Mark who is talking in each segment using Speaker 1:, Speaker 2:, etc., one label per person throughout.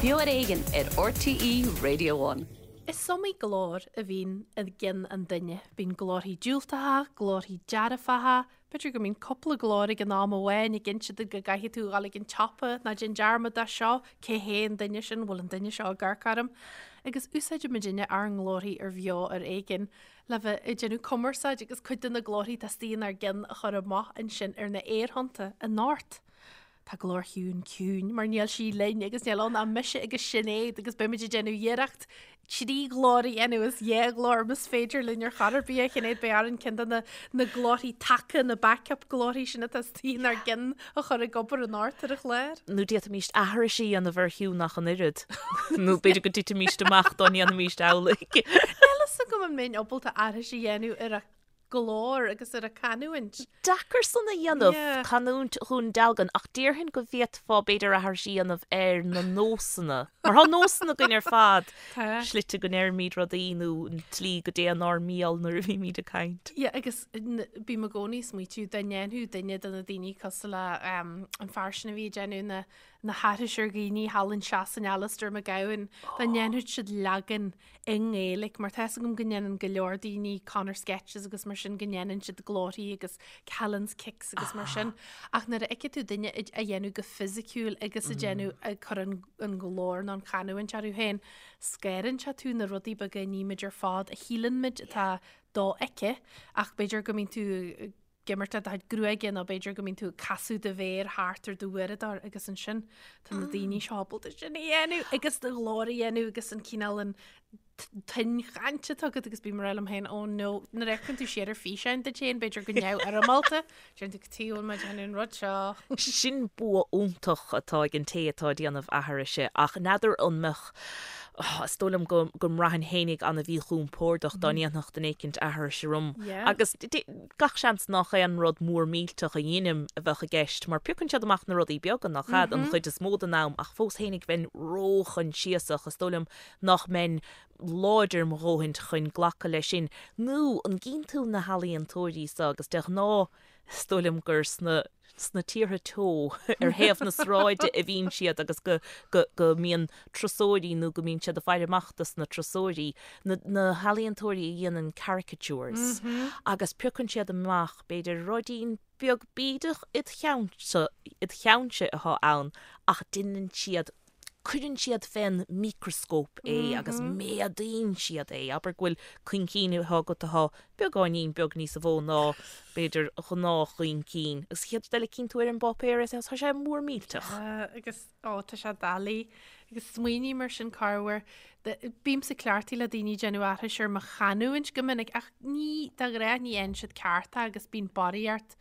Speaker 1: Beo ar Éigean ar RTÉ Radio One.
Speaker 2: Is iomaí glór a bhíonn i gceann an duine. Bíonn glórthaí diúltacha, glórthaí dearfacha, b'fhéidir go mbíonn cúpla glór ag an am amháin ag inse duit go gcaithfidh tú a dhul ag an tsiopa, ná déan dearmad de seo, cé hé an duine sin, bhfuil an duine seo ag amharc orm? Agus úsáideann muidinne ár nglórthaí ar Bheo ar Éigean le bheith ag déanamh cumarsáid agus cuid de na glórthaí atá istigh inár gceann a chur amach ansin ar na aerthonnta anocht. Tá glór Shiún ciúin mar níl sí linn agus níl ann ach mise agus Sinéad agus beimid ag déanamh iarracht trí ghlór a dhéanamh is dhá ghlór más féidir linn ar chor ar bith a Shinéad beidh orainn ceann de na na glórthaí taca na backup glórthaí sin atá istigh inár gceann a chur ag obair anocht ar an chlár.
Speaker 3: Nó d'fhéadfaimíst aithris a dhéanamh ar Shiún ach an oiread. Nó b'fhéidir go dtitfimíst amach dá ndéanfaimíst amhlaidh.
Speaker 2: Níl fhios agam an mbeinn ábalta aithris a dhéanamh ar a glór agus ar a canúint.
Speaker 3: Deacair san a dhéanamh, canúint Dhún Dealgan, ach déarfainn go bhféadfá b'fhéidir aithris a dhéanamh ar na nósanna. Mar tá nósanna againn ar fad, slite go ndeirimid rudaí nó an tslí go dtéann ár mbéal nuair a bhímid ag caint.
Speaker 2: Yeah, agus bím i gcónaí ag smaoitiú dá ndéanfadh duine de na daoine cosúil le an fear sin a bhí ag déanamh na na haithris ar dhaoine thall in Sasain, Alistair McGowan, dá ndéanfadh siad leagan i nGaeilic, mar tá 'fhios agam go ndéanann go leor daoine Conor sketches agus mar sin go ndéanann siad glórthaí agus Callan's kicks agus mar sin. Ach nuair a fheiceann tú duine á dhéanamh go fisiciúil agus ag déanamh ag cur an an glór nó an chanúint orthu féin, scanraíonn sé tú na rudaí beaga a nímid ar fad a shíleann muid atá dofheicthe ach b'fhéidir go mbíonn tú ag imirt le do chuid gruaige nó b'fhéidir go mbíonn tú ag casadh do mhéar thart ar do uaireadóir agus ansin tá na daoine seo ábalta sin a dhéanamh agus do ghlór a dhéanamh agus an cineál an tuin chainte atá agat agus bím ag rá liom féin oh no nuair a fheiceann tú siar ar físeáin duit féin b'fhéidir go neamhfhoirmeálta déanann tú cad chuige a bhfuil mé ag déanamh an rud seo.
Speaker 3: Sin bua iontach atá ag an té atá ag déanamh aithrise ach n'fheadar an mbeadh is dóigh liom go go mbraithfinn fhéinig an-mhíchompordach dá ndéanfadh duine éicint aithris orm agus Gach seans nach aon rud mór millteach a dheinim a bheadh i gceist, mar piocann siad amach na rudaí beaga, nach ead, an chuid is mó den am, ach fós fhéinig bheinn róchoinsiasach, is dóigh liom nach mbeinn láidir mo dhóthaint chun glacadh leis sin. Nó an gcíonn tú na healaíontóirí so, agus de ghnáth is dóigh liom gur sna. sna tíortha teo ar thaobh na sráide a bhíonn siad agus go, go, go mbíonn turasóirí nó go mbíonn siad ag faire amach dos na turasóirí, na, na healaíontóirí a dhéanann caricatures agus piocann siad amach b'fhéidir ruidín beag bídeach id cheannsa, id cheannsa atá ann ach deineann siad cuireann siad fén micreascóp é agus méadaíonn siad é. Abair go bhfuil coincín atá agat atá beagáinín beag níosa mhó ná, b'fhéidir, gnáthchoincín. Agus an chéad rud eile cíonn tú ar an bpáipéar é tá sé mór millteach.
Speaker 2: Agus, ó, tá sé doiligh. Agus smaoiním ar sin corruair. Bímse cleachtaithe le daoine ag déanamh aithris ar mo chanúint go minic ach ní, de ghnáth ní fhaigheann siad ceart é agus bíonn barraíocht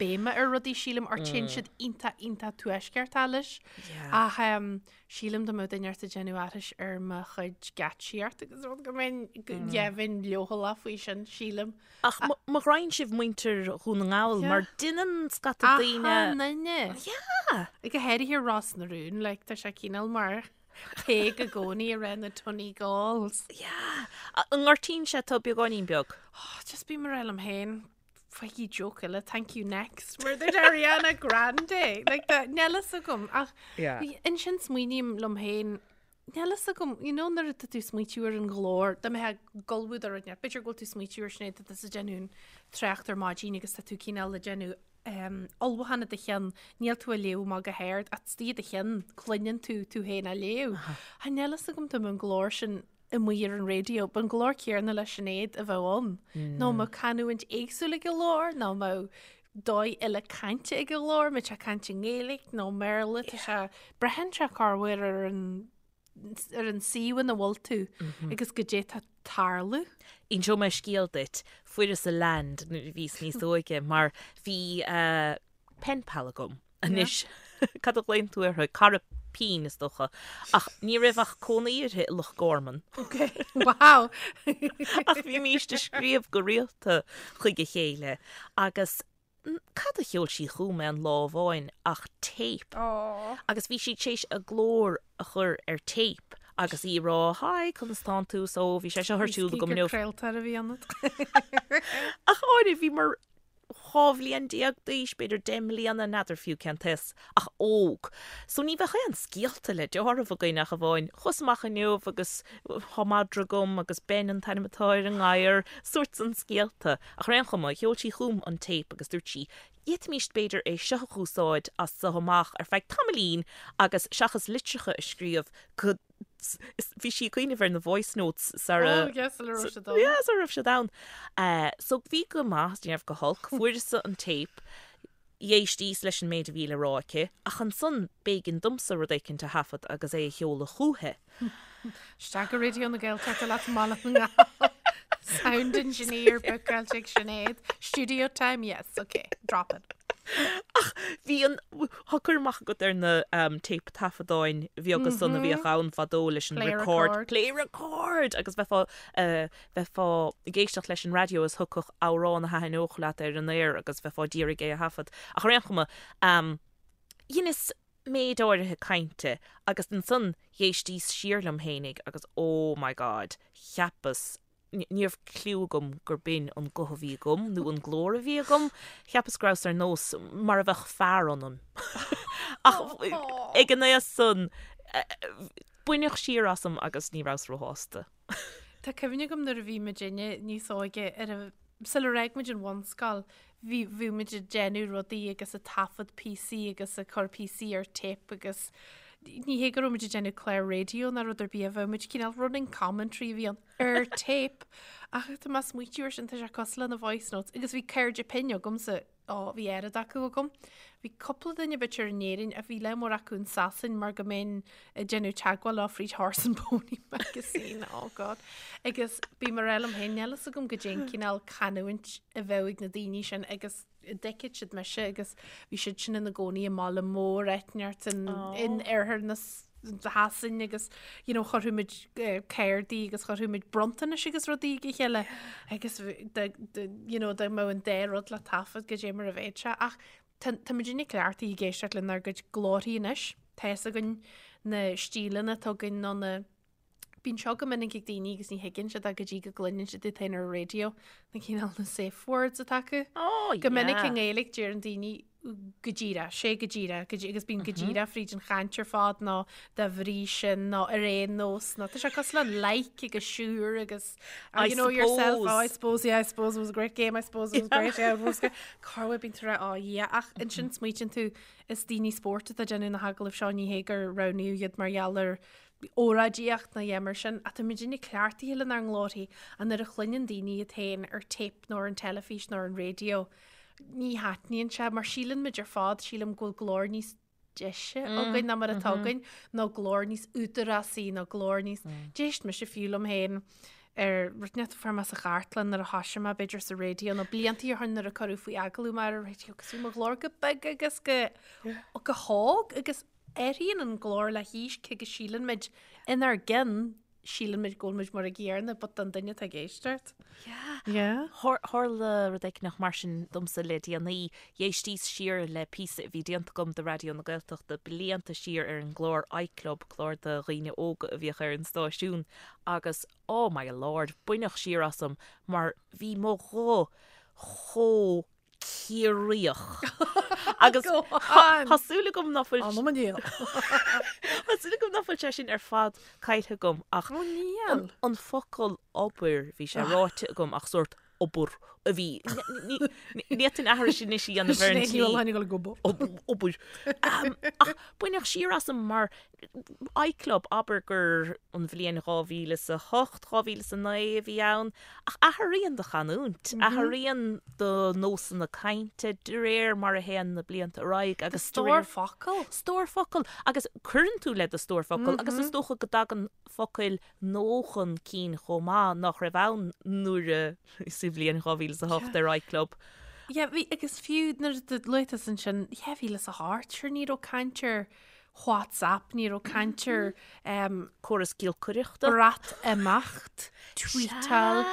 Speaker 2: béime ar rudaí sílim or téann siad iontach iontach tuaisceartach leis. Ach sílim dá mbeadh duine ort ag déanamh aithris ar mo chuid geáitsíocht agus rud go mbeinn bheinn leochaileach faoi sin sílim.
Speaker 3: Ach mo ghraidhin sibh muintir Dhún na nGall mar deineann scata daoine.
Speaker 2: Achan duine.
Speaker 3: Yeah.
Speaker 2: Go háirithe Ros na Rún, like tá sé cineál mar Peig i gcónaí ag rá na Donegalls.
Speaker 3: Yeah. An ngortaíonn sé tú beagáinín beag?
Speaker 2: Oh, just bím ag rá liom féin. Faighigí joke eile, thank you next, mar dúirt Ariana Grande. Like that, níl fhios agam. Ach
Speaker 3: Yeah.
Speaker 2: ansin smaoiním liom féin, níl fhios agam, you know, nuair atá tú ag smaoitiú ar an ghlór, dá mbeifeá ag ullmhú do rud, b'fhéidir go bhfuil tú ag smaoitiú ar Sinéad, tá tusa ag déanamh an trácht ar maidin agus tá tú cineál ag déanamh um, ullmhúchán i do cheann, níl tú ag léamh amach go hard, ach istigh i do cheann, cluineann tú tú féin á léamh. Ach níl fhios agam dá mbeadh an glór sin amuigh ar an raidió, b'an glór céarna le Sinéad a bheadh ann. Nó an mbeadh canúint éagsúil ag an ghlór, nó an mbeadh dóigh eile cainte ag an ghlór, mbeadh sé ag caint i nGaeilge nó i mBéarla, tá sé, braitheann sé corruair ar an ar an suíomh ina bhfuil tú agus goidé tá ag tarlú.
Speaker 3: Inseoidh mé scéal duit. Fuaireas a land nuair a bhíos níos óige mar bhí pen pal agam. Anois, cad a ghlaonn tú uirthi? Cara pinn, is dócha. Ach ní raibh ach cónaí uirthi i Loch Garman.
Speaker 2: Ok, wow!
Speaker 3: Ach bhímíst ag scríobh go rialta chuig a chéile agus cad a sheol sí chugam aon lá amháin ach téip.
Speaker 2: Aww.
Speaker 3: Agus bhí sí tar éis a glór a chur ar téip agus í ag rá, Hi, conas tánn tú? So, bhí sé seo ar siúl agam inniu.
Speaker 2: Craoltóir a bhí ionat.
Speaker 3: Ach áirithe, bhí mar. 12 bhliain d'aois, b'fhéidir 10 mbliana, n'fheadar fiú cén t-aos, ach óg. So ní bheadh aon scéalta le deáramh againn ach amháin, chuas amach inniu agus thá madra agam agus Ben an t-ainm atá ar an ngadhar, sórt san scéalta. Ach ar aon chuma, sheol sí chugam an téip agus dúirt sí, d'fhéadfaimíst b'fhéidir é seo a dh'úsáid as so amach ar feadh tamaillín agus seachas litreacha a scríobh go bhí sí ag cuimhneamh ar na voice notes sara
Speaker 2: Oh yes, sula raibh siad ann.
Speaker 3: Yeah, sara raibh siad ann. So bhí go maith, ní raibh go holc, fuaireas-sa an téip, d'éistíos leis an méid a bhí le rá aici, ach ansan b'éigean domsa rud éicint a thaifead agus é a sheoladh chúithi.
Speaker 2: Isteach go Raidió na Gaeltachta leat i mBaile na nGall. Sound engineer bookáilte ag Sinéad. Studio time, yes, ok, drop it.
Speaker 3: Ach bhí an, tá cur amach agat ar na téip taifeadáin bheaga san a bhíodh ann fadó leis an
Speaker 2: Play
Speaker 3: record,
Speaker 2: record.
Speaker 3: play record! Agus bheifeá, bheifeá ag éisteacht leis an raidió is thiocfadh amhrán a thaitneodh leat ar an aer agus bheifeá d'iarraidh é a thaifead. Ach ar aon chuma, dheineas méid áirithe cainte agus ansan dh'éistíos siar liom fhéinig agus oh my God, cheapas, ní raibh cliú agam gur b'in an guth a bhí agam nó an glór a bhí agam, cheapas go rabhas ar nós mar a bheadh fear ionam. Ach ag an aois san, baineadh siar asam agus ní rabhas róshásta.
Speaker 2: Tá cuimhne agam nuair a bhí muidinne níos óige ar a, sular fhág muid an bhunscoil, bhí, bhí muid ag déanamh rudaí agus ag taifead píosaí agus ag cur píosaí ar tape agus ní hé go raibh muid ag déanamh clár raidió ná rud ar bith, bheadh muid cineál running commentary a bhí ann ar tape. Ach tá mé ag smaoitiú air sin, tá sé cosúil le na voice notes agus bhí cairde pinn agamsa Ó, bhí oiread acu agam. Bhí cúpla duine b'fhéidir in Éirinn ach bhí lear mór acu in Sasain mar go mbeinn ag déanamh teagmháil leo fríd Horse and Pony magazine, oh God. Agus bím ag rá liom féin, níl fhios agam goidé an cineál canúint a bheadh ag na daoine sin agus an dtuigfeadh siad mise agus bhí siad sin ina gcónaí i mbaile mór eitneart in, in oirthear na Shasain agus you know chuirfeadh muid cártaí agus chuirfeadh muid bronntanais agus rudaí ag a chéile agus you know dá mbeadh an dá rud le taifead goidé mar a bheadh sé ach tá tá muidinne cleachtaithe ag éisteacht lenár gcuid glórthaí anois tá fhios againn na stíleanna atá againn nó na Bíonn seo go minic ag daoine agus ní thuigeann siad é go dtí go gcluineann siad iad féin ar an raidió na cineál na safe words atá acu.
Speaker 3: Oh,
Speaker 2: Go minic i
Speaker 3: yeah.
Speaker 2: nGaeilge deireann daoine go díreach, sé go díreach, go dí- agus bíonn go díreach fríd an chaint ar fad nó dá bhrí sin nó ar aon nós nó tá sé cosúil le like agus sure agus
Speaker 3: I
Speaker 2: you know yourself, oh, I
Speaker 3: suppose.
Speaker 2: suppose, yeah, I suppose it was a great game, I suppose it was great, yeah, it was great. Corruair bíonn tú ag rá, oh yeah, ach ansin smaoitíonn tú is daoine spóirt atá ag déanamh na hagallaimh seo ní hé gur roghnaíodh iad mar gheall ar óráidíocht nó a dhath mar sin, ach tá muidinne cleachtaithe lenár nglórthaí ach nuair a chluineann daoine iad féin ar tape nó ar an teilifís nó ar an raidió, ní thaitníonn sé mar síleann muid ar fad, sílim go bhfuil glór níos deise againn ná mar atá againn, nó glór níos údarásaí nó glór níos, d'éist mise fiú liom féin ar rud inteacht a fuair mé sa chartlann nuair a thoisigh mé b'fhéidir sa raidió nó bliantaí ó shin nuair a cuireadh faoi agallamh mé ar an raidió agus bhí mo ghlór go beag agus go go hóg agus athraíonn an glór le haois cé go síleann muid inár gceann síleann muid go bhfuil muid mar an gcéanna but don duine atá ag éisteacht.
Speaker 3: Yeah.
Speaker 2: Yeah.
Speaker 3: Tharla rud éicneach mar sin domsa le déanaí. Dh'éistíos siar le píosa a bhí déanta agam do Raidió na Gaeltachta blianta siar ar an gclár iClub, clár do dhaoine óga a bhíodh ar an stáisiún, agus oh my lord, baineadh siar asam mar bhí mo ghuth chomh Ciarraíoch. Agus tá súil agam ná fuil
Speaker 2: Anam an diabhail.
Speaker 3: Tá súil agam ná fuil sé sin ar fad caillte agam ach
Speaker 2: Ó níl.
Speaker 3: an focal obair bhí sé ráite agam ach sórt obair a bhí ní fhéadfainn aithris anois a dhéanamh ar an
Speaker 2: Sinéad Ní Mhaoláin ag dul ag obair.
Speaker 3: Obair. Ach baineadh siar asam mar iClub, abair gur an bhliain 2008, 2009 a bhí ann, ach athraíonn do chanúint, athraíonn do nósanna cainte de réir mar a théann na blianta ar aghaidh agus
Speaker 2: Do stór focal.
Speaker 3: Stór focal agus cuireann tú le do stór focal agus is dócha go dtagann focail nua chun cinn chomh maith nach raibh ann nuair a sa bhliain 2008 ar iClub.
Speaker 2: Yeah, bhí, agus fiú nuair a luaigh tusa ansin 2008, sure ní raibh caint ar WhatsApp, ní raibh caint ar
Speaker 3: córas giolcaireachta,
Speaker 2: Breatimeacht, tweetáil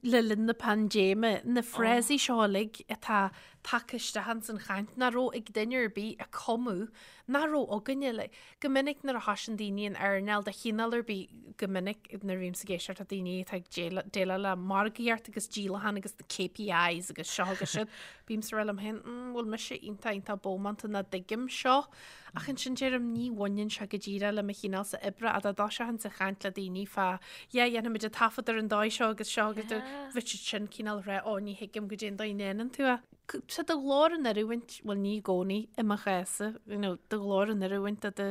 Speaker 2: le linn na paindéime, na frásaí seo uilig atá. tagtha isteach ins an chaint nach raibh ag duine ar bith a cumadh nach raibh againne. Like, go minic nuair a thosaíonn daoine in earnáil de chineál ar bith, go minic nuair a bhímse ag éisteacht le daoine atá ag déileáil le margaíocht agus díolachán agus na KPIs agus seo agus siúd, bímse ag rá liom féin, mm, bhfuil mise iontach iontach bómánta nach dtuigim seo. Ach ansin deirim ní bhaineann sé go díreach le mo chineálsa oibre ach dá dtoiseochainnse ag caint le daoine fá yeah dhéanfaimid an taifead ar an dóigh seo agus seo agus bheadh siad sin cineál ag rá ó ní thuigim goidé an dóigh a ndéanann tú é. Tá do ghlór in oiriúint, bhuel ní i gcónaí i mo chás-sa, you know, do ghlór in oiriúint do do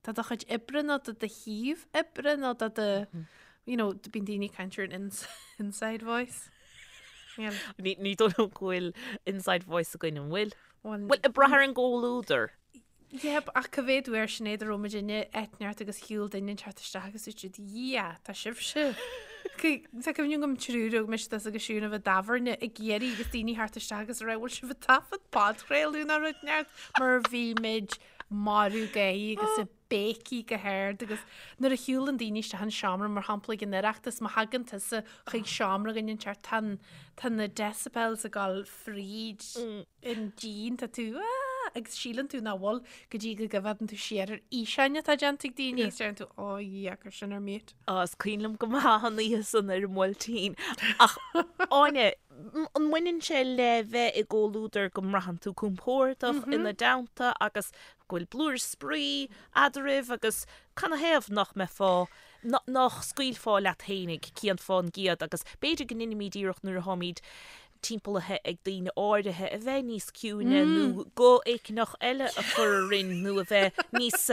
Speaker 2: do do chuid oibre nó do do shuíomh oibre nó do do you know, bíonn daoine ag caint ar an inside voice.
Speaker 3: Yeah. Ní ní dóigh liom go bhfuil inside voice againn an bhfuil? Bhuel, ag brath ar an gcomhluadar.
Speaker 2: Yep, ach cá mhéad uair Sinéad a raibh muid in áit inteacht agus shiúil duine inteacht isteach agus dúirt siad, Yeah, tá sibhse. Tá cuimhne agam triúr ó mise tusa agus Siún a bheith i dtábhairne ag iarraidh agus daoine theacht isteach agus a rá, bhfuil sibh ag taifead podchraoladh nó rud inteacht mar bhí muid marbh gáire agus ag béicigh go hard agus nuair a shiúlann daoine isteach an seomra, mar shampla ag an Oireachtas, má thagann tusa chuig seomra againn inteacht, tá an, tá na decibels ag dul fríd an díon, tá tú aah agus síleann tú nach bhfuil go dtí go gcoimhéadann tú siar ar fhíseáin atá déanta ag daoine agus deireann tú oh yeah, cuir sin ar mute.
Speaker 3: Á, is cuimhin liom go maith an oíche san ar an mBuailtín. Ach, Áine, an mbaineann sé le bheith i gcomhluadar go mbraitheann tú compordach ina dteannta agus go bhfuil blúire spraoi eadraibh agus canathaobh nach mbeifeá, nach scaoilfeá leat fhéinig cian fán gciad agus b'fhéidir go ndeinimíd iarracht nuair atháimíd timpeallaithe ag daoine áirithe a bheith níos ciúine nó guth éigineach eile a chur orainn nó a bheith níos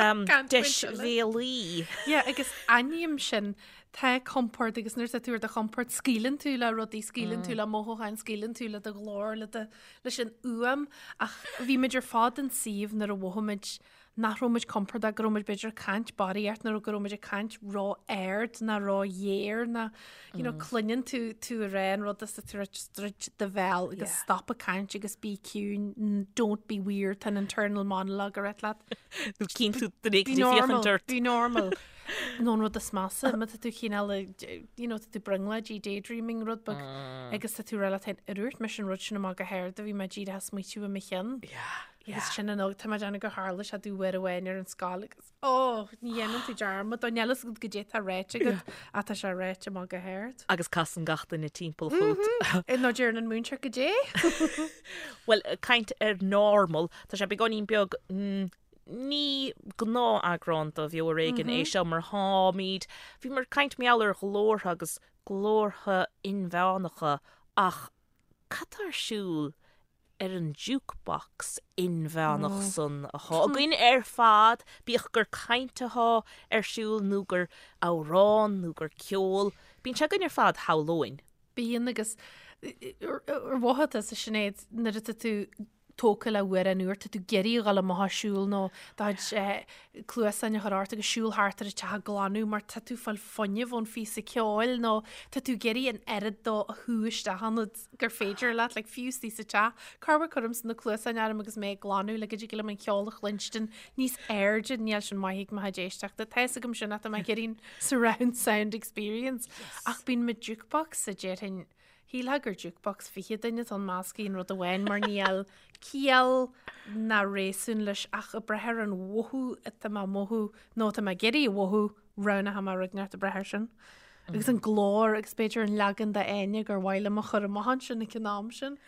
Speaker 3: deisbhéalaí.
Speaker 2: Yeah, agus aithním sin, tá compord agus nuair atá tú ar do chompord scaoileann tú le rudaí, scaoileann tú le mothúcháin, scaoileann tú le do ghlór, le do leis an fhuaim ach bhí muid ar fad in suíomh nuair a mhothaigh muid nach raibh muid compordach, go raibh muid b'fhéidir ag caint barraíocht nó go raibh muid ag caint ró-ard nó ró-ghéar nó you know, cluineann tú tú ag rá an rud is tú just druid do bhéal agus stop ag caint agus bí ciúin, don't be weird, tá an internal monologue ag rith leat.
Speaker 3: Nó cíonn tú duine éigin ag féachaint ort.
Speaker 2: Be normal. Nó an rud is measa, má tá tú cineál ag, you know, tá tú brionglóidí, daydreaming rud beag, agus tá tú ag rá leat féin, ar dhúirt mise an rud sin amach go hard a bhí mé díreach ag smaoitiú i mo cheann. Agus sin an óg, tá mé ag déanamh gur tharla sé domh uair amháin ar an scoil agus, oh, ní dhéanann tú dearmad, dó, níl fhios agat goidé atá ráite agat, ach tá sé ráite amach go hard.
Speaker 3: Agus casann gach duine timpeall fút.
Speaker 2: Nó deireann an múinteoir goidé.
Speaker 3: Bhuel, caint ar normal, tá sé beagáinín beag, Ní gnáth-eagrán de Bheo Ar Éigean é seo mar tháimid, bhíomar ag caint mar gheall ar ghlórtha agus glórtha inmheánacha ach cad tá ar siúl ar an jukebox inmheánach san athá againn ar fad, bíodh gur caint athá ar siúl nó gur amhrán nó gur ceol, bíonn sé againn ar fad, shamhlóinn.
Speaker 2: Bíonn agus ar mhothaigh tusa Sinéad nuair atá tú tógtha le hamhrán úr, tá tú ag iarraidh a dhul amach ag siúl nó do chuid cluasáin a chur ort agus siúl thart ar an teach ag glanadh mar tá tú ag fáil fuinneamh ón phíosa ceoil nó tá tú ag iarraidh an oiread dó a shú isteach ionat gur féidir leat, like fiú istigh sa teach. Corruair cuirimse na cluasáin orm agus mé ag glanadh le go dtig liom an ceol a chluinstin níos airde, níl sin maith ag mo chuid éisteachta. Tá fhios agam sin ach tá mé ag iarraidh an surround sound experience. Ach bíonn mo jukebox sa déarfainn Shílfeá gur jukebox 20 duine atá ann measctha in rud amháin mar níl ciall ná réasún leis ach ag brath ar an mhothú atá mé a mhothú nó atá mé ag iarraidh a mhothú, roghnóidh mé rud inteacht ag brath air sin. Agus an glór agus b'fhéidir an leagan d'Áine gur mhaith liom a chur amach ansin ag an am sin.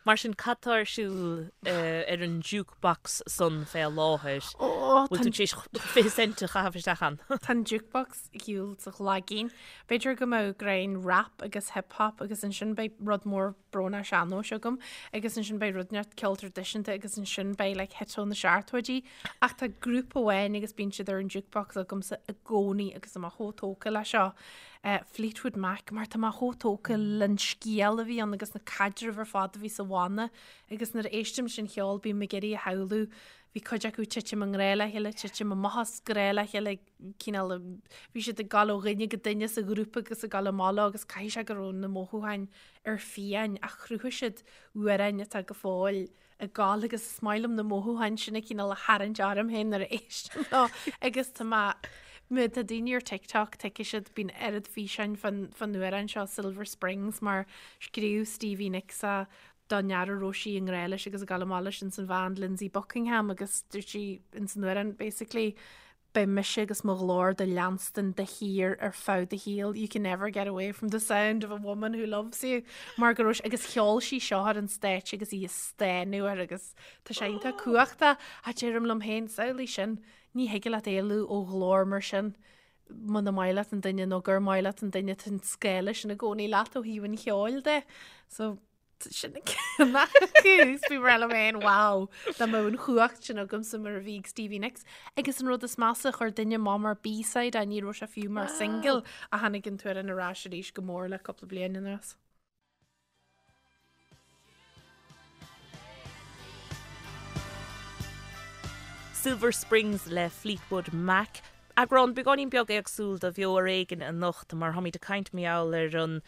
Speaker 3: Mar sin, cad tá ar siúl ar an jukebox san fé láthair? Bhfuil tú tar éis 20 cent a chaitheamh isteach ann?
Speaker 2: Tá an jukebox ag siúl sa ghlaigín. B'fhéidir go mbeadh greim rap agus hip hop agus ansin beidh rud mór brónach sean-nóis agam agus ansin beidh rud inteacht ceol traidisiúnta agus ansin beidh like hit ó na seachtóidí. Ach tá grúpa amháin agus bíonn siad ar an jukebox agamsa i gcónaí agus tá mé chomh tógtha le seo. Fleetwood Mac mar tá mé chomh tógtha len scéal a bhí ann agus na caidrimh ar fad a bhí sa bhanna agus nuair a éistim leis an cheol bím ag iarraidh a shamhlú bhí cuid acu titim i ngrá le chéile, titim amach as grá le chéile, cineál bhí siad ag gabháil ó dhuine go duine sa ghrúpa agus ag gabháil amach leo agus caithfidh sé go raibh na mothúcháin ar fiáin ach chruthaigh siad amhráin atá go fóill ag gabháil agus is maith liom na mothúcháin sin a cineál a tharraingt orm féin nuair a éistim leo agus tá mé má tá daoine ar TikTok tuigfidh siad bíonn oiread físeáin fán fán amhrán seo Silver Springs mar scríobh Stevie Nicks é. don fhear a raibh sí i ngrá leis agus ag dul amach leis ins an bhand Lindsey Buckingham agus dúirt sí ins an amhrán basically beidh mise agus mo ghlór do leanstan de shíor ar feadh do shaoil, you can never get away from the sound of a woman who loves you mar go raibh agus cheol sí seo ar an stáitse agus í ag stánadh air agus tá sé iontach cumhachtach a deirim liom féin samhlaigh sin ní thig leat éalú ó ghlór mar sin muna maith leat an duine nó gur maith leat an duine tá an scála sin i gcónaí leat ó thaobh an cheoil de. So sin bhí mé liom féin wow dá mbeadh an chumhacht sin agamsa mar a bhí ag Stevie Nicks. Agus an rud is measa chuir duine amach mar B-side é ní raibh sé fiú mar single a tháinig an t-amhrán ar ais arís go mór le cúpla bliain anuas.
Speaker 3: Silver Springs le Fleetwood Mac. Eagrán beagáinín beag éagsúil de Bheo ar Éigean anocht mar táimid ag caint mar gheall ar an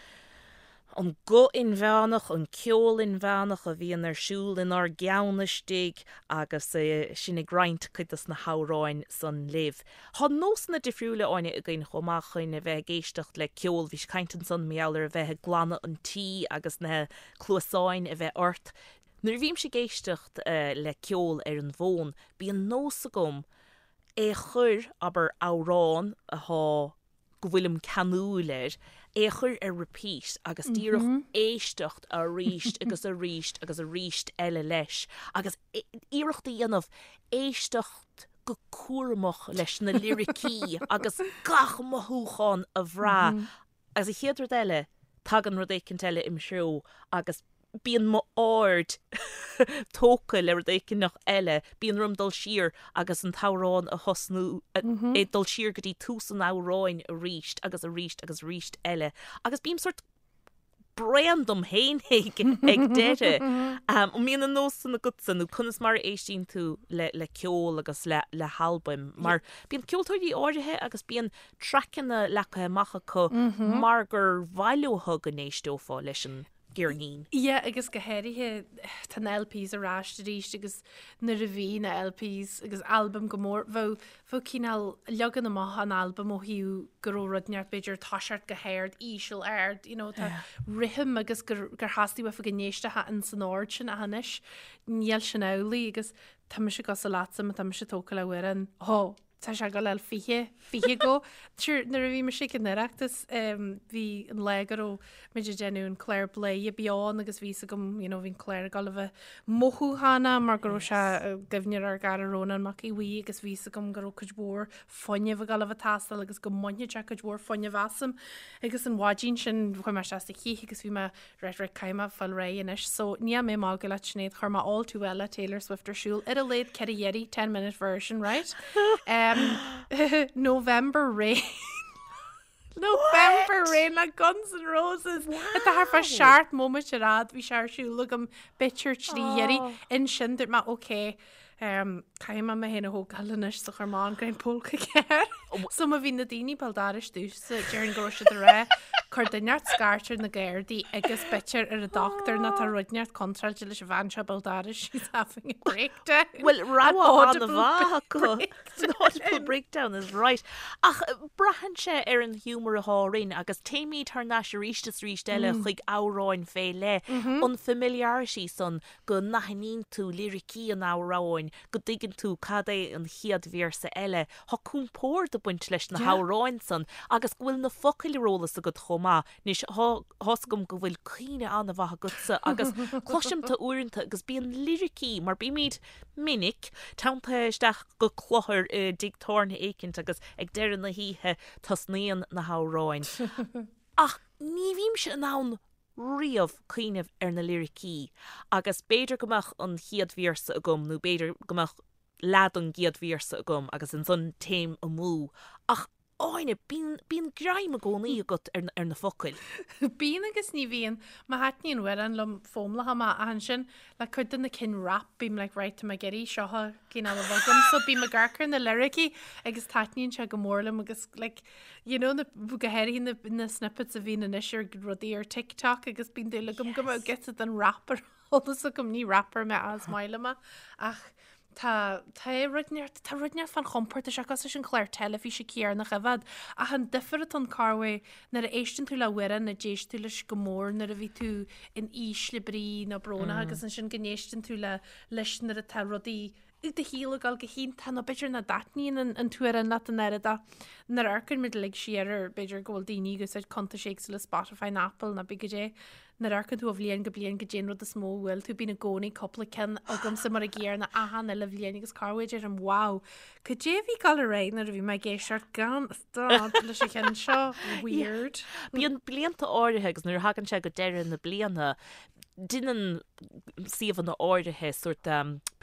Speaker 3: an guth inmheánach, an ceol inmheánach a bhíonn ar siúl inár gceann istigh agus sinn ag roinnt cuid dos na hamhráin san libh. Tá nósanna difriúla, Áine, againn chomh maith chun a bheith ag éisteacht le ceol. Bhís ag caint ansan mar gheall ar a bheith ag glanadh an tí agus na cluasáin a bheith ort. Nuair a bhímse ag éisteacht le ceol ar an bhfón, bíonn nós agam é a chur, abair, amhrán atá go bhfuilim ceanúil air, é a chur ar repeat agus díreach éisteacht arís agus arís agus arís eile leis agus iarracht a dhéanamh éisteacht go cúramach leis na liricí agus gach mothúchán a bhrath agus an chéad rud eile tagann rud éicint eile im threo agus bíonn m'aird tógtha le rud éigineach eile, bíonn orm dul siar agus an t-amhrán a thosnú, é dul siar go dtí tús an amhráin arís agus arís agus arís eile agus bím sórt bréan dom féin ag deireadh. An mbíonn an nós san agatsa nó conas mar a éistíonn tú le ceol agus le halbaim? Mar bíonn ceoltóirí áirithe agus bíonn traiceanna leagtha amach acu mar gur mhaith leo go n-éisteofá leis an gceirnín.
Speaker 2: Yeah, agus go háirithe tá na LPs ar ais arís agus nuair a bhí na LPs agus albaim go mór, bheadh, bheadh cineál leagan amach an albaim ó thaobh go raibh rud inteacht b'fhéidir toiseacht go hard, íseal, ard, you know, tá rithim agus gur, gur theastaigh uafa go n-éistfeá in san ord sin ach anois níl sin amhlaidh agus tá mise cosúil leatsa má tá mise tógtha le hamhrán, ó, Tá sé ag dul 20, 20 go. Sure, nuair a bhí mise ag an Oireachtas, bhí an lá go raibh muid ag déanamh an clár Bladhaire Beo ann agus bhí fhios agam, you know, bhí an clár ag dul a bheith mothúchánach mar go raibh sé i gcuimhne ar ár gcara Rónán Mac Aodha Bhuí agus bhí fhios agam go raibh cuid mhór fuinnimh ag dul a bheith ag teastáil agus go mbainfeadh sé cuid mhór fuinnimh asam. Agus an mhaidin sin chuaigh mé isteach sa chith agus bhí mé Right, right, caithfidh mé fáil réidh anois. So, níl mé ag magadh leat Sinéad, chuir mé All Too Well le Taylor Swift ar siúl ar a laghad 4 iarraidh, 10 minute version, right? Um, November Rain. November Rain le Guns N' Roses. Atá thart fá 7 móimit ar fhad, bhí sé ar siúl agam b'fhéidir 3 iarraidh. Ansin dúirt mé, okay, Caithfidh mé mé féin a thógáil anois so chuir mé an Greim Póca Cearr. So má bhí na daoine béal dorais domhsa, déarfainn go raibh siad ag rá cuir duine inteacht scairt ar na Gardaí agus b'fhéidir ar an dochtúir nó tá rud inteacht contráilte leis an bhean seo béal dorais, she's having a breakdown.
Speaker 3: Bhuel, rogha an-mhaith acu. An audible breakdown is right. Ach braitheann sé ar an ghiúmar atá orainn agus téimid thar n-ais arís is arís eile chuig amhráin fé leith, an familiarity san go n-aithníonn tú liricí an amhráin, go dtuigeann tú cad é an chéad véarsa eile. Tá compord ag baint leis na hamhráin san agus go bhfuil na focail ar eolas agat chomh maith. Anois, tá fhios agam go bhfuil cuimhne an-mhaith agatsa agus cloisim tú uaireanta agus bíonn liricí, mar bímid minic, teanntaithe isteach go cluthar i dtigh tábhairne éicint agus ag deireadh na hoíche tosnaíonn na hamhráin. Ach ní bhímse in ann riamh cuimhneamh ar na liricí agus b'fhéidir go mbeadh an chéad véarsa agam nó b'fhéidir go mbeadh leath den gcéad véarsa agam agus ansan téim amú ach Áine, bíonn, bíonn greim i gcónaí agat ar, ar na focail.
Speaker 2: Bíonn agus ní bhíonn. Má thaitníonn amhrán liom foghlaimeoidh mé ach ansin le cuid de na cinn rap bím like right tá mé ag iarraidh seo a cineál a bheith agam so bím ag amharc ar na liricí agus taitníonn sé go mór liom agus like You know, na, go háirithe na, na snippets a bhíonn anois ar rudaí ar TikTok agus bíonn dúil agam go mbeadh giota den rap ar eolas agam, ní rapper mé ach is maith liom é. Ach Tá tá rud inteacht tá rud inteacht fán chompord tá sé cosúil leis an chlár teilifíse céanna a choimhéad ach an difear atá ann corruair nuair a éisteann tú le hamhrán a d'éist tú leis go mór nuair a bhí tú in ísle brí nó brónach agus ansin go n-éisteann tú le leis nuair atá rudaí i do shaol ag dul go hiontach nó b'fhéidir nach dtaitníonn an an t-amhrán leat an oiread ach nuair a amharcann muid uilig siar ar b'fhéidir go bhfuil daoine ag úsáid cuntais éagsúla Spotify nó Apple nó cibé goidé Nuair a amharcann tú ó bhliain go bliain goidé an rud is mó a bhuail tú, bíonn i gcónaí cúpla ceann agamsa mar an gcéanna achan uile bhliain agus corruair deirim wow, cad é a bhí ag dul ar aghaidh nuair a bhí mé ag éisteacht gan stad leis an cheann seo, weird.
Speaker 3: Bíonn blianta áirithe agus nuair a thagann sé go deireadh na bliana, deineann suíomhanna áirithe sórt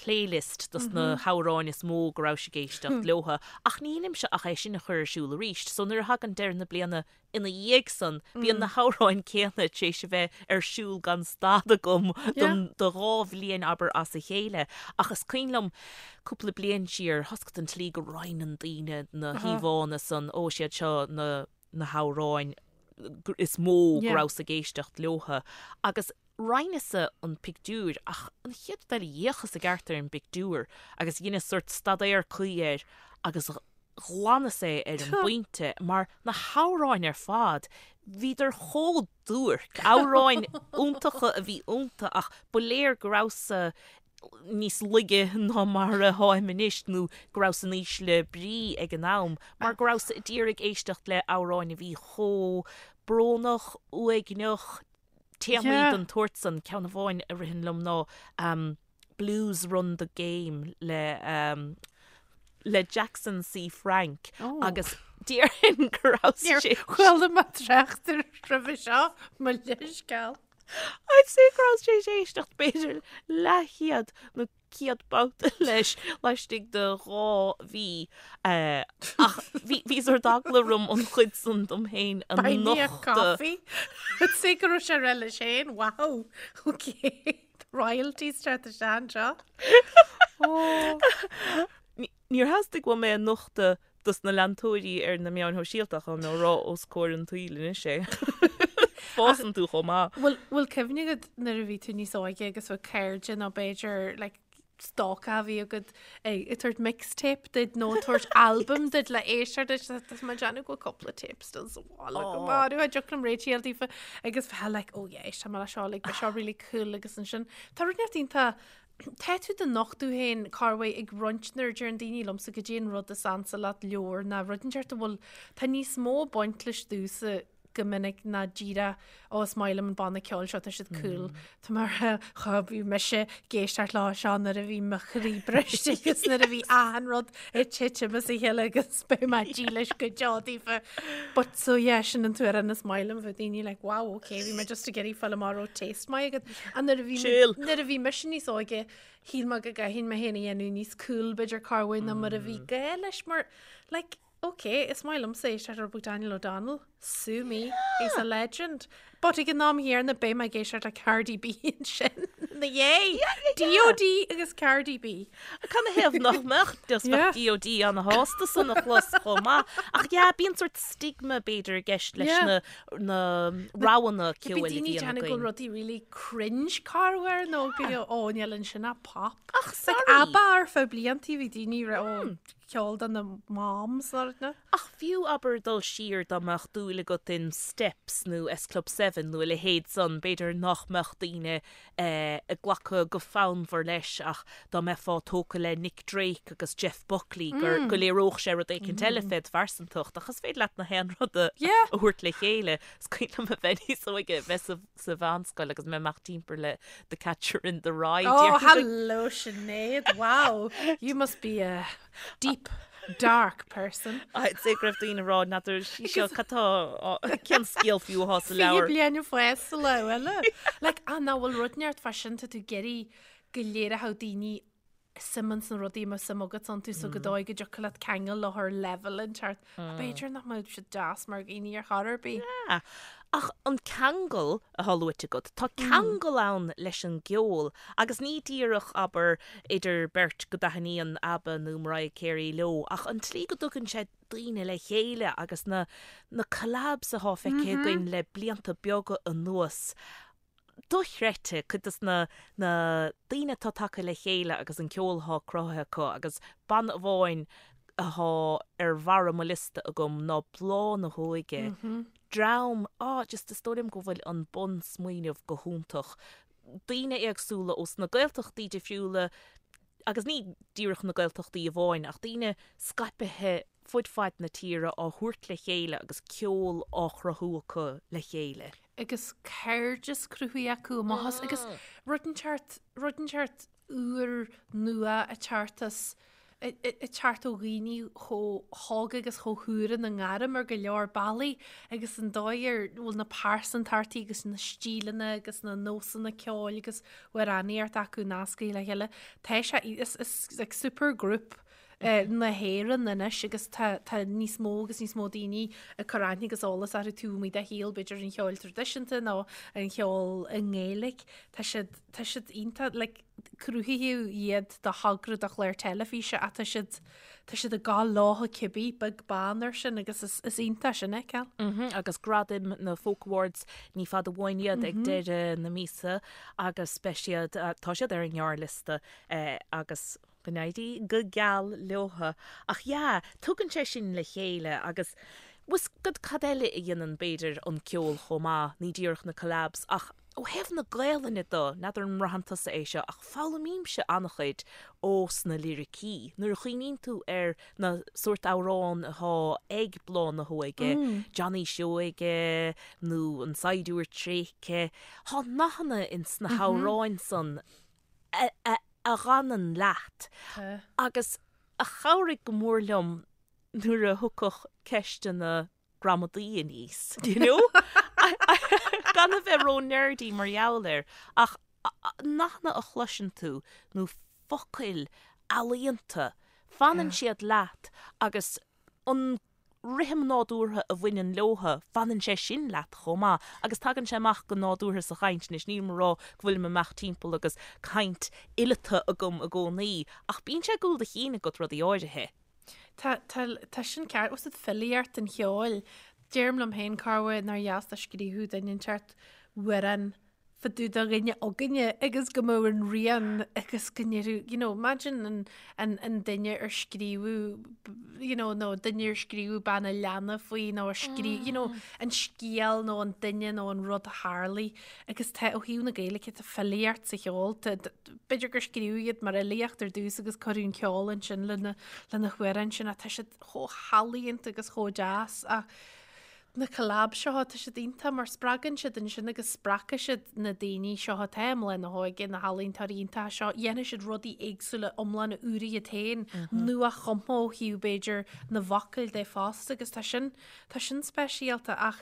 Speaker 3: playlist dos na hamhráin is mó go rabhais ag éisteacht leotha ach ní dheinimse ach é sin a chur ar siúl arís. So nuair a thagann deireadh na bliana Ina dhiaidh san, bíonn na hamhráin céanna tar éis a bheith ar siúl gan stad agam don do dhá bhliain, abair, as a chéile. Ach is cuimhin liom cúpla bliain siar, tá a fhios agat an tslí go roinneann daoine na híomhánna san, ó, is iad seo na na hamhráin is mó go rabhas ag éisteacht leotha. Agus roinneas-sa an pictiúr ach an chéad rud eile d'fhéachas i gceart ar an bpictiúr agus dheineas sórt staidéar cuí air agus ghlanas é ar an bpointe mar na hamhráin ar fad, bhíodar chomh duairc, amhráin iontacha a bhí iontu ach ba léir go rabhas-sa níos laige ná mar a tháim anois nó go rabhas in ísle brí ag an am mar go rabhas a d'iarraidh éisteacht le hamhráin a bhí chomh brónach, uaigneach, téamaí den tsórt san. Ceann amháin a ritheann liom ná Blues Run the Game le le Jackson C. Frank agus déarfainn go raibh sé.
Speaker 2: Níor chuala mé trácht air roimhe seo, mo leithscéal.
Speaker 3: I'd say go raibh sé ag éisteacht b'fhéidir leathchéad nó 100 babhta leis laistigh de 2 mhí. Ach bhí sórt eagla orm an chuid san dom féin a
Speaker 2: Buy me a
Speaker 3: nochtadh.
Speaker 2: coffee. I'd say go raibh sé ag rá leis féin, wow, okay, royalties teacht isteach anseo. Oh.
Speaker 3: Níor theastaigh uaim é a nochtadh dos na leantóirí ar na meáin shóisialta ach tá mé á rá os comhair an tsaoil anois é. Fásann tú chomh maith.
Speaker 2: Bhfuil bhfuil cuimhne agat nuair a bhí tú níos óige agus bheadh cairde nó b'fhéidir like, stalker a bhí agat ag ag tabhairt mixtape duit nó ag tabhairt album duit le éisteacht leis tá mé ag déanamh go bhfuil cúpla tape still sa bhaile go maith a dtiocfadh liom réitigh daofa agus bheith like oh yeah éist mé le seo like beidh seo really cool agus ansin tá rud inteacht iontach Tá tú do nochtadh féin corruair ag roinnt nuair a deireann daoine liomsa goidé an rud is ansa leat leabhar ná rud inteacht a bhfuil tá níos mó ag baint leis domhsa go minic ná díreach ó is maith liom an banna ceoil seo tá siad cool. Tá mar cha bhí mise ag éisteacht leo seo nuair a bhí mo chroí briste agus nuair a bhí achan rud ag titim as a chéile agus beidh mé dílis go deo daofa. But so yeah sin an t-amhrán is maith liom bheadh daoine like wow okay bhí mé just ag iarraidh fáil amach raibh taste maith agat. And nuair a bhí
Speaker 3: Chill.
Speaker 2: nuair a bhí mise níos óige shíl mé go gcaithfinn mé féin a dhéanamh níos cool b'fhéidir corruair ná mar a bhí gá leis mar like okay is maith liomsa éisteacht le Daniel O'Donnell sue me he's a legend. But ag an am chéanna beidh mé ag éisteacht le Cardi B ansin ina dhiaidh. DOD agus Cardi B.
Speaker 3: Canathaobh nach mbeadh just bheadh DOD ana-shásta san a chlos chomh maith. Ach yeah, bíonn sórt stigma b'fhéidir i gceist leis na na roghanna
Speaker 2: ceoil a
Speaker 3: bhíonn
Speaker 2: againn. Bíonn daoine ag déanamh go bhfuil rudaí really cringe corruair nó go ó níl ansin ach pop.
Speaker 3: Ach sorry.
Speaker 2: Like ABBA ar feadh bliantaí bhí daoine ag rá ó ceol do na moms nó rud na.
Speaker 3: Ach fiú abair dul siar dá mbeadh dúil agat in Steps nó S Club 7 nó a leithéid san, b'fhéidir nach mbeadh daoine ag glacadh go fonnmhar leis ach dá mbeifeá tógtha le Nick Drake agus Jeff Buckley gur go léireodh sé rud éicint eile fé do phearsantacht ach is féidir leat na haon rud a thabhairt le chéile. Is cuimhin liom a bheith níos óige, bheith sa sa mheánscoil agus mé amach timpeall le The Catcher in the Rye.
Speaker 2: Oh, hello Sinéad, wow, you must be a deep, dark person.
Speaker 3: I'd say go raibh daoine ag rá n'fheadar sí seo cad tá cén scéal fiú atá sa leabhar.
Speaker 2: 20 bliain fásta sa lá eile. Like, ah, nach bhfuil rud inteacht fá sin tá tú ag iarraidh go léireodh daoine suim ins na rudaí a mbeadh suim agat iontu so go dóigh go dtiocfadh leat ceangal leo ar level inteacht. B'fhéidir nach mbeadh siad deas mar dhaoine ar chor ar bith.
Speaker 3: Yeah. Ach an ceangal atá luaite agat, tá ceangal ann leis an gceol agus ní díreach, abair, idir beirt go dtaitníonn ABBA nó Mariah Carey leo ach an tslí go dtugann sé daoine le chéile agus na na collabs atá feicthe againn le blianta beaga anuas. Dochreidte, cuid des na na daoine atá tagtha le chéile agus an ceol atá cruthaithe acu agus banna amháin athá ar bharra mo liosta agam ná Bláth na hÓige. Dream, ah just is dóigh liom go bhfuil an bun-smaoineamh go hiontach. Daoine éagsúla ós na Gaeltachtaí difriúla agus ní díreach na Gaeltachtaí amháin ach daoine scaipithe fud fad na tíre á thabhairt le chéile agus ceol á chruthú acu le chéile.
Speaker 2: Agus cairdeas cruthaithe acu amach as agus rud inteacht, rud inteacht úr nua ag teacht as, ag teacht ó dhaoine chomh hóg agus chomh húr ina ngairm ar go leor bealaí agus an dóigh ar bhfuil na pearsantachtaí agus na stíleanna agus na nósanna ceoil agus amhránaíocht acu nasctha le chéile. Tá sé, is, is like super group na hÉireann anois agus tá tá níos mó agus níos mó daoine ag cur aithne agus eolas orthu taobh amuigh de shaol b'fhéidir an cheoil traidisiúnta nó an cheoil i nGaeilge. Tá siad tá siad iontach like cruthaíodh iad do thogra do chlár teilifíse ach tá siad tá siad ag gabháil leo cibé beag beann air sin agus is is iontach sin a fheiceáil.
Speaker 3: Mm agus gradaim na Folk Awards ní fada uainn iad ag deireadh na míosa agus beidh siad tá siad ar an ngearrliosta agus Go n-éirí go geal leotha. Ach yeah, tugann sé sin le chéile agus bhfuil 's agat cad eile a dhéanann b'fhéidir an ceol chomh maith, ní díreach na collabs ach ó thaobh na Gaelainne do, n'fheadar an mbraitheann tusa é seo ach foghlaimímse an-chuid ós na liricí. Nuair a chuimhníonn tú ar na sórt amhrán atá ag Bláth na hÓige, Johnny Seoige nó An Saighdiúir Tréigthe, thá nathanna ins na hamhráin san a a a dh'fhanann leat agus a chabhraigh go mór liom nuair a thiocfadh ceisteanna gramadaí aníos, you know? Gan a bheith ró-nerdy mar gheall air, ach nathanna a chloiseann tú nó focail ealaíonta, fanann siad leat agus an rithim nádúrtha a bhaineann leotha, fanann sé sin leat chomh maith agus tagann sé amach go nádúrtha sa chaint. Anois, nílim ag rá go bhfuilim amach timpeall agus caint fhileata agam i gcónaí, ach bíonn sé i gcúl do chinn agat rudaí áirithe.
Speaker 2: Tá, tá, tá sin ceart. Bhfuil 's agat filíocht an cheoil. Deirim liom féin, corruair nár dheas dá scríobhadh duine inteacht amhrán fá dtaobh de dhuine againne agus go mbeadh an rian agus go ndéarfadh, you know, imagine an, an, an duine ar scríobhadh, you know, nó duine ar scríobhadh bean a' leanna faoi nó ar scríobh, you know, an scéal nó an duine nó an rud a tharlaigh agus tá ó thaobh na Gaeilge tá filíocht sa cheol, tá, b'fhéidir gur scríobhadh iad mar fhilíocht ar dtús agus cuireadh an ceol ansin lena, lena hamhráin sin ach tá siad chomh healaíonta agus chomh deas ach Na collabs seo, tá siad iontach mar spreagann siad ansin agus spreagfaidh siad na daoine seo atá i mBláth na hÓige, na healaíontóirí iontacha seo, dhéanfaidh siad rudaí éagsúla iomlána úra iad féin, nua-chumtha ó thaobh b'fhéidir na bhfocal de fosta agus tá sin, tá sin speisialta ach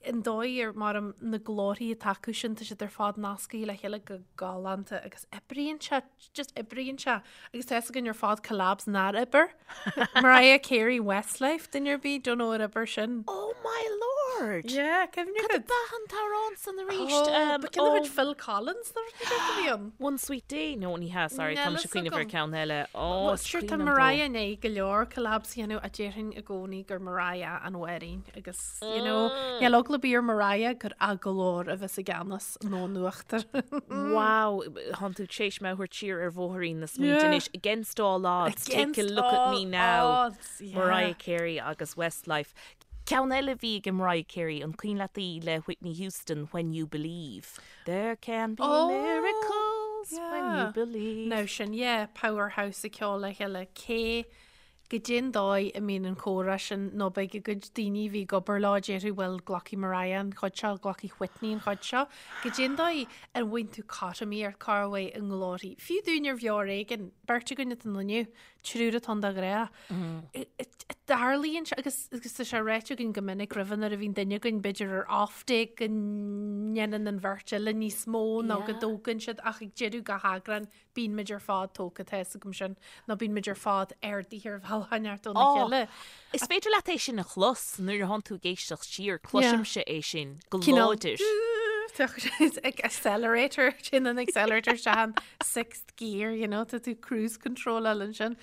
Speaker 2: an dóigh ar mar na glórthaí atá acu sin, tá siad ar fad nasctha le chéile go galánta agus oibríonn sé just oibríonn sé agus tá fhios againn ar fad collabs nár oibir. Mariah Carey Westlife duine ar bith don't know ar oibir sin.
Speaker 3: Oh my lord!
Speaker 2: Yeah, cuimhne
Speaker 3: Cad
Speaker 2: agat?
Speaker 3: ab ea an t-amhrán san arís?
Speaker 2: Oh,
Speaker 3: Um,
Speaker 2: ba cinn a
Speaker 3: oh,
Speaker 2: chuid Phil Collins nó rud éigin a bhí ann.
Speaker 3: One Sweet Day? No, ní hea, sorry,
Speaker 2: Níl
Speaker 3: tá mise
Speaker 2: fhios
Speaker 3: ag cuimhneamh ar
Speaker 2: agam.
Speaker 3: ceann eile. Oh,
Speaker 2: Well,
Speaker 3: is
Speaker 2: sure, tá
Speaker 3: cuimhin liom dó.
Speaker 2: Mariah i ndiaidh go leor collabs a dhéanamh a déarfainn i gcónaí gur Mariah an mháithrín agus, you know, níl eagla ar bith ar Mariah gur a glór a bheas i gceannas. nó in uachtar.
Speaker 3: Wow, thánn tú tar éis mé a thabhairt siar ar bhóithrín na smaointe anois. Against all odds, take a look at me now. Mariah Carey agus Westlife. Ceann eile a bhí ag Mariah Carey, an cuimhin leat í le Whitney Houston, When You Believe. There can be miracles when you believe.
Speaker 2: Now sin, yeah, powerhouse ag ceol le chéile. Cé Goidé an dóigh a mbíonn an comhrá sin nó beidh a gcuid daoine a bhí ag obair leo déarfaidh bhuel glacfaidh Mariah an chuid seo, glacfaidh Whitney an chuid seo. Goidé an dóigh a bhfaigheann tú cothromaíocht corruair i nglórthaí. Fiú dúinn ar Bheo Ar Éigean, beirt againn atá ann inniu, triúr atá ann de ghnáth. Tarlaíonn sé agus agus tá sé ráite againn go minic roimhe nuair a bhíonn duine againn b'fhéidir ar off day go ndéanann an bheirt eile níos mó nó go dtógann siad ach ag deireadh gach eagrán Bíonn muid ar fad tógtha, tá fhios agam sin, nó bíonn muid ar fad ardaithe ar bhealach inteacht óna chéile.
Speaker 3: Is féidir leat é sin a chlos nuair a thánn tú ag éisteacht siar, cloisimse é sin go láidir.
Speaker 2: Accelerator, sin an accelerator isteach an sixth gear, you know, tá tú cruise control ansin.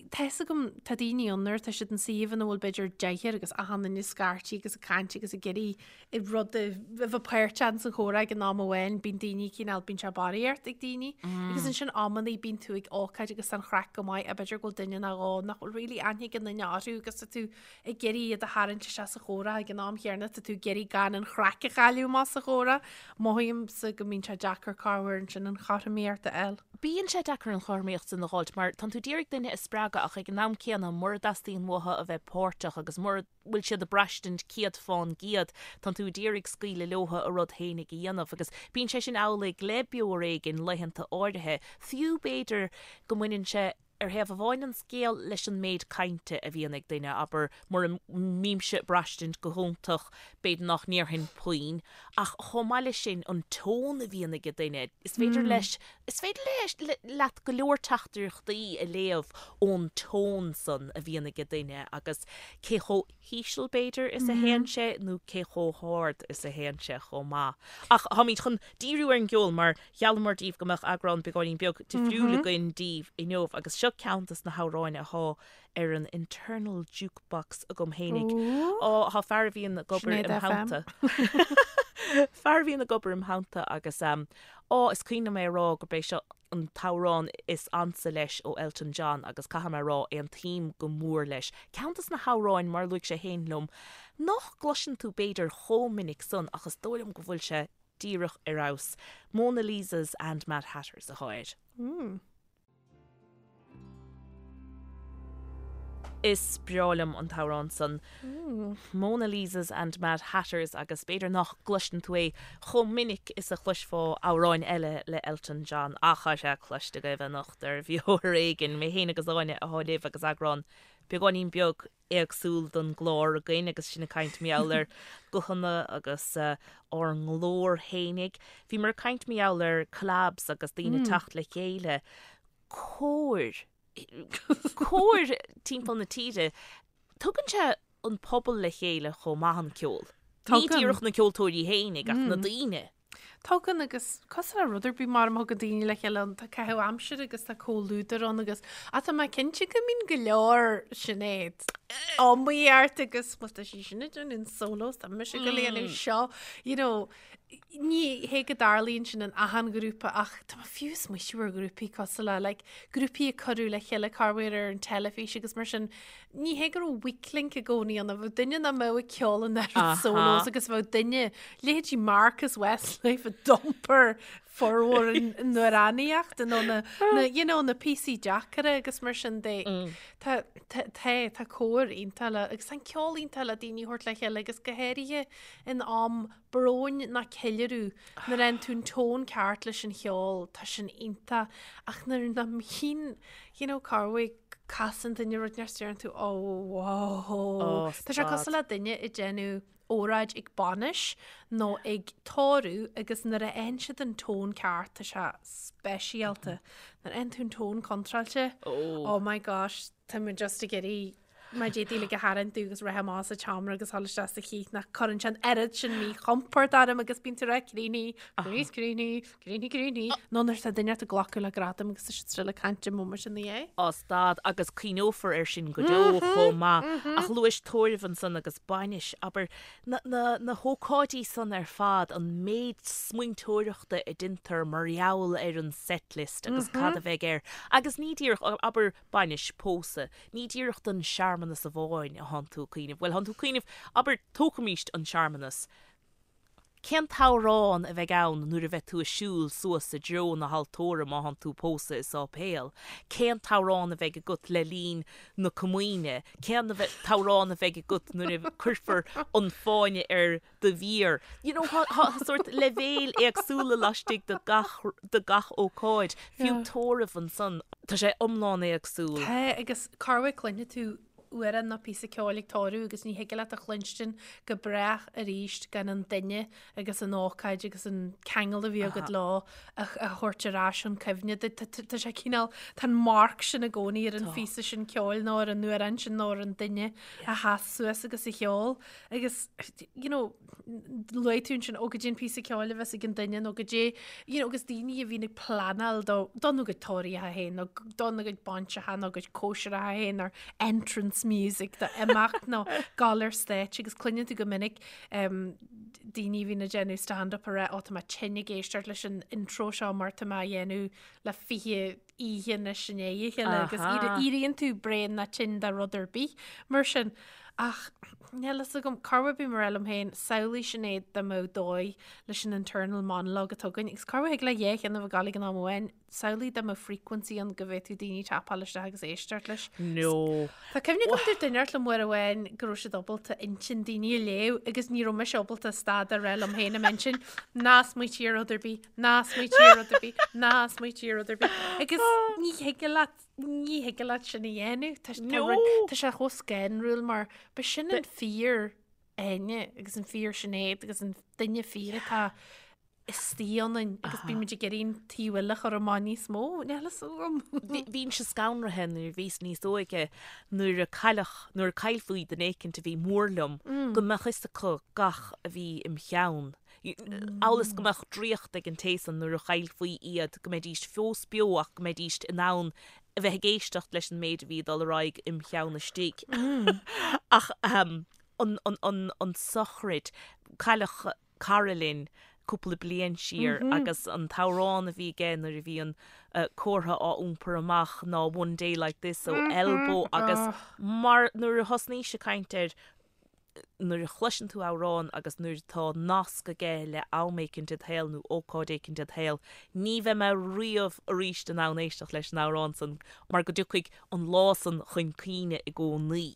Speaker 2: Tá fhios agam, tá daoine ann nuair atá siad in suíomh ina bhfuil b'fhéidir deichniúr agus achan duine ag scairtigh agus ag caint agus ag iarraidh rud a bheith páirteach sa chomhrá ag an am amháin, bíonn daoine cineál, bíonn sé barraíocht ag daoine. Agus ansin amannaí bíonn tú ag ócáid agus tá an chraic go maith, ach b'fhéidir go bhfuil duine nó dhó nach bhfuil really aithne ag an duine orthu agus tá tú ag iarraidh iad a tharraingt isteach sa chomhrá ag an am chéanna, tá tú ag iarraidh gan an chraic a chailleadh amach sa chomhrá. Mothaímse go mbíonn sé deacair corruair ansin an chothromaíocht a fháil.
Speaker 3: Bíonn sé deacair an chothromaíocht sin a dh'fháilt mar tánn tú d'iarraidh duine a spreagadh ach ag an am céanna mura dteastaíonn uathu a bheith páirteach agus mura bhfuil siad ag braistint 100%, tánn tú d'iarraidh scaoileadh leothu a rud fhéinig a dhéanamh agus bíonn sé sin amhlaidh le Beo Ar Éigean laethanta áirithe, fiú b'fhéidir go mbaineann sé Ar thaobh amháin den scéal leis an méid cainte a bhíonn ag duine, abair, mura mbímse ag braistint go hiontach, b'fhéidir nach ndéarfainn puinn, ach chomh maith leis sin, an tón a bhíonn ag duine, is féidir leis, is féidir leis, leat go leor teachtaireachtaí a léamh ón tón san a bhíonn ag duine agus cé chomh híseal, b'fhéidir, is a théann sé nó cé chomh hard is a théann sé chomh maith. Ach táimid chun díriú ar an gceol mar Gheallamar daoibh go mbeadh eagrán beagáinín beag difriúil againn daoibh inniu agus seo ceann des na hamhráin athá ar an internal jukebox agam fhéinig. Á, thá fear a bhíonn ag obair im theannta. Fear a bhíonn ag obair im theannta agus á, is cuimhin liom é a rá gurb é seo an t-amhrán is ansa leis ó Elton John agus caithfidh mé a rá, aontaím go mór leis. Ceann des na hamhráin, mar a luaigh sé fhéin liom, nach gcloiseann tú b'fhéidir chomh minic san ach is dóigh liom go bhfuil sé díreach ar fheabhas. Mona Lisas and Mad Hatters athá air. Is breá liom an t-amhrán san. Mona Lisas and Mad Hatters agus b'fhéidir nach gcloiseann tú é chomh minic is a chloisfeá amhráin eile le Elton John ach tá sé cloiste agaibh anocht ar Bheo Ar Éigean. Mé féin agus Áine athá libh agus eagrán beagáinín beag éagsúil don gclár againn agus sinn ag caint mar gheall ar ghuthanna agus ár nglór fhéinig. Bhíomar ag caint mar gheall ar collabs agus daoine ag teacht le chéile. Cóir, cóir timpeall na tíre. Tugann sé an pobal le chéile chomh maith an ceol. Ní díreach na ceoltóirí fhéinig ach na daoine.
Speaker 2: Tugann agus cosúil le rud ar bith mar a thugann daoine le chéile ann, tá caitheamh aimsire agus tá comhluadar ann agus ach tá mé cinnte go mbíonn go leor Sinéad iomaíocht agus bhuel tá sí sin ag déanamh an solo tá mise ag gabháil a dhéanamh seo you know ní hé go dtarlaíonn sin in achan ghrúpa ach tá mé fiú ag smaoitiú ar ghrúpaí cosúil le like grúpaí a cuireadh le chéile corruair ar an teilifís agus mar sin Ní hé go raibh weak link i gcónaí ann, bheadh duine nach mbeadh ag ceol an oiread solos agus bheadh duine, leithéidí Marcus Westlife a d'iompair formhór an amhránaíocht nó na, na, you know, na píosaí deacra agus mar sin de. Tá, tá, tá, tá cór iontach le, agus tá an ceol iontach le daoine a thabhairt le chéile agus go háirithe in am bróin ná ceiliúradh, nuair a fhaigheann tú an tón ceart leis an cheol, tá sin iontach, ach nuair nach mbíonn, you know, corruair casann duine rud inteacht deireann tú, oh, whoa. Tá sé cosúil le duine ag déanamh óráid ag bainis nó ag tórramh agus nuair a fhaigheann siad an tón ceart, tá sé speisialta. Nuair a fhaigheann tú an tón contráilte, oh my gosh, tá mé just ag iarraidh Má d'fhéadfaí like a tharraingt agus rith amach as an tseomra agus dhul isteach sa chith nach cuireann sé an oiread sin míchompord orm agus bíonn tú ag rá críochnaigh, críochnaigh, críochnaigh, críochnaigh, críochnaigh. Nó nuair atá duine ag glacadh le gradam agus tá siad still ag caint an móimint ina dhiaidh.
Speaker 3: Á stad agus cuimhneofar air sin go deo chomh maith. Ach luais tórramh ansan agus bainis, abair, na, na, na hócáidí san ar fad, an méid smaointeoireachta a deintear mar gheall ar an setlist agus cad a bheidh air. Agus ní díreach, abair, bainis, pósadh, ní díreach don searmanas amháin a thánn tú ag cuimhneamh, bhuel, thánn tú ag cuimhneamh, abair, tógfaimíst an searmanas, cén t-amhrán a bheidh ann nuair a bheidh tú ag siúl suas i dtreo na haltóra má thánn tú ag pósadh i sáipéal, cén t-amhrán a bheidh agat le linn na comaoine, cén t-amhrán a bheidh agat nuair a cuirfear an fáinne ar do mhéar. You know, tá sórt leibhéil éagsúla laistigh de gach, de gach ócáid, fiú tórramh ansan. Tá sé iomlán éagsúil.
Speaker 2: Tá, agus corruair cluinfidh tú. amhrán nó píosa ceoil ag toradh agus ní thig leat a chluinstin go brách arís gan an duine agus an ócáid agus an ceangal a bhí agat leo a thabhairt ar ais chun cuimhne duit. Tá sé cineál, tá an marc sin i gcónaí ar an phíosa sin ceoil nó ar an amhrán sin nó ar an duine a sheas suas agus a cheol. Agus, you know, luaigh tú ansin, ó goidé an píosa ceoil a bheas ag an duine nó goidé, you know, agus daoine a bhíonn ag pleanáil do, dona gcuid tórraíocha féin nó dona gcuid bainseacha nó gcuid cóisireacha féin nó entrance music do imeacht nó gabháil ar stáitse agus cluineann tú go minic um, daoine a bhíonn ag déanamh stand-up a rá, ó tá mé tinn ag éisteacht leis an intro seo mar tá mé á dhéanamh le 20 oíche anois i ndiaidh a chéile agus éiríonn tú bréan nó tinn de rud ar bith mar sin. Ach níl fhios agam, corruair bím ag rá liom féin, samhlaigh Sinéad dá mbeadh dóigh leis an internal monologue atá againn agus corruair thig le dhá cheann a bheith ag gabháil ag an am amháin, Samhlaigh dá mbeadh frequency ann go bhféadfadh daoine tapáil isteach agus éisteacht leis.
Speaker 3: No.
Speaker 2: Tá cuimhne agam dúirt duine inteacht liom uair amháin go raibh siad ábalta intinn daoine a léamh agus ní raibh mise ábalta stad a rá liom féin i m'intinn, ná smaoitigh ar rud ar bith, ná smaoitigh ar rud ar bith, ná smaoitigh ar rud ar bith. Agus ní thig leat, ní thig leat sin a dhéanamh. Tá tá rud, tá sé chomh scanrúil mar ba sin an fíor Áine agus an fíor Sinéad agus an duine fíor atá istigh ionainn agus bímid ag iarraidh an taobh eile a chur amach níos mó, níl fhios agam.
Speaker 3: Bhínnse scanraithe nuair a bhíos níos óige nuair a cailleadh, nuair a caillfí duine éicint a bhí mór liom, go mbeadh fhios acu gach a bhí im cheann. Amhail is go mbeadh draíocht ag an té san nuair a chaillfí iad, go mbeidís fós beo ach go mbeidís in ann a bheith ag éisteacht leis an méid a bhí ag dul ar aghaidh im cheann istigh. Ach an, an, an, an tsochraid, cailleadh cara linn cúpla bliain siar agus an t-amhrán a bhí aige nuair a bhí an comhartha á iompar amach ná One Day Like This ó Elbow agus mar nuair a thosnaís ag caint air nuair a chloiseann tú amhrán agus nuair atá nasc aige le am éicint id shaol nó ócáid éicint id shaol, ní bheidh mé riamh arís in ann éisteacht leis an amhrán san mar go dtiocfaidh an lá san chun cuimhne i gcónaí.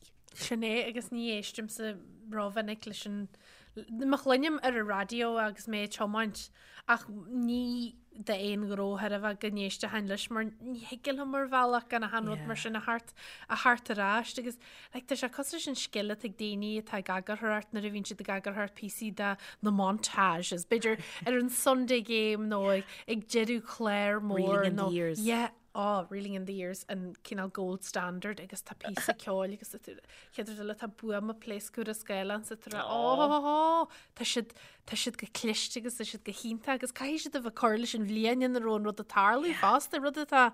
Speaker 2: Sin é agus ní éistimse rómhinic leis an Má chluinim ar an raidió agus mé ag tiomáint ach ní d'aon ghnó thar a bheith go n-éistfinn leis mar ní thig liom ar bhealach gan achan rud mar sin a theacht a theacht ar ais agus like, tá sé cosúil leis an scil atá ag daoine atá ag eagarthóireacht nuair a bhíonn siad ag eagarthóireacht píosaí de na montages, b'fhéidir ar an Sunday game nó ag, ag deireadh clár mór
Speaker 3: Reeling in
Speaker 2: nó
Speaker 3: the years.
Speaker 2: yeah, oh, Reeling in the Years an cineál gold standard agus tá píosa ceoil agus chéad rud eile tá buama pléascadh ar an scáileán sa trá oh, tá siad tá siad go cliste agus tá siad go hiontach agus caithfidh siad a bheith ag cur leis an bhliain ina raibh an rud ag tarlú fosta, rud atá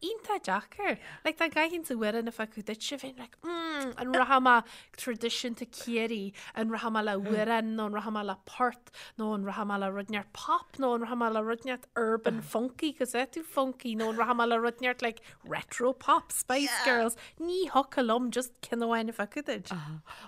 Speaker 2: iontach deacair. Like dá gcaithfinnse amhrán a phiocadh duitse bheinn like mm, an rachaidh mé traidisiúnta Ciarraí, an rachaidh mé le hamhrán nó an rachaidh mé le port nó an rachaidh mé le rud inteacht pop nó an rachaidh mé le rud inteacht urban funky cos é tú funky nó an rachaidh mé le rud inteacht like retro pop Spice Girls ní thiocfadh liom just ceann amháin a phiocadh duit.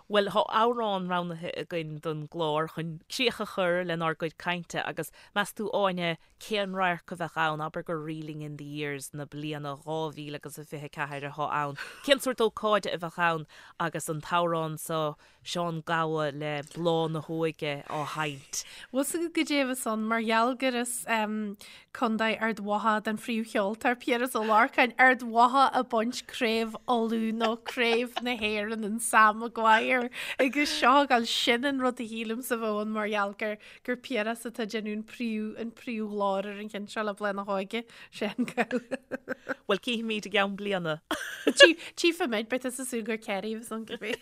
Speaker 3: Bhuel tá amhrán roghnaithe againn don gclár chun críoch a chur lenár gcuid cainte agus meas tú Áine cén radharc a bheadh ann, abair gur Reeling in the Years na bliana 2000 agus a 24 atá ann, cén sórt ócáide a bheadh ann agus an t-amhrán seo Seán Gabha le Bláth na hÓige á sheinnt.
Speaker 2: Bhfuil 's agat goidé a bheas ann mar gheall gur as Contae Ard Mhacha don phríomhcheoltóir, Piaras Ó Lorcáin, Ard Mhacha ag baint Craobh Uladh nó Craobh na hÉireann an Sam Maguire agus seo ag gabháil sin an rud a shílimse a bheadh ann mar gheall gur gur Piaras atá ag déanamh an príomh an príomhghlór ar an cheann seo le Bláth na hÓige. Seán Gabha.
Speaker 3: Bhuel cífimid i gceann bliana.
Speaker 2: Tchífimid, beidh tusa ag súil gur Kerry a bheas ann cibé.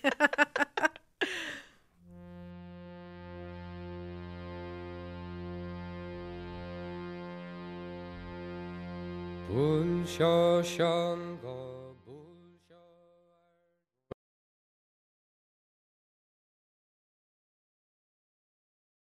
Speaker 4: Bhuail seo Seán Gabha.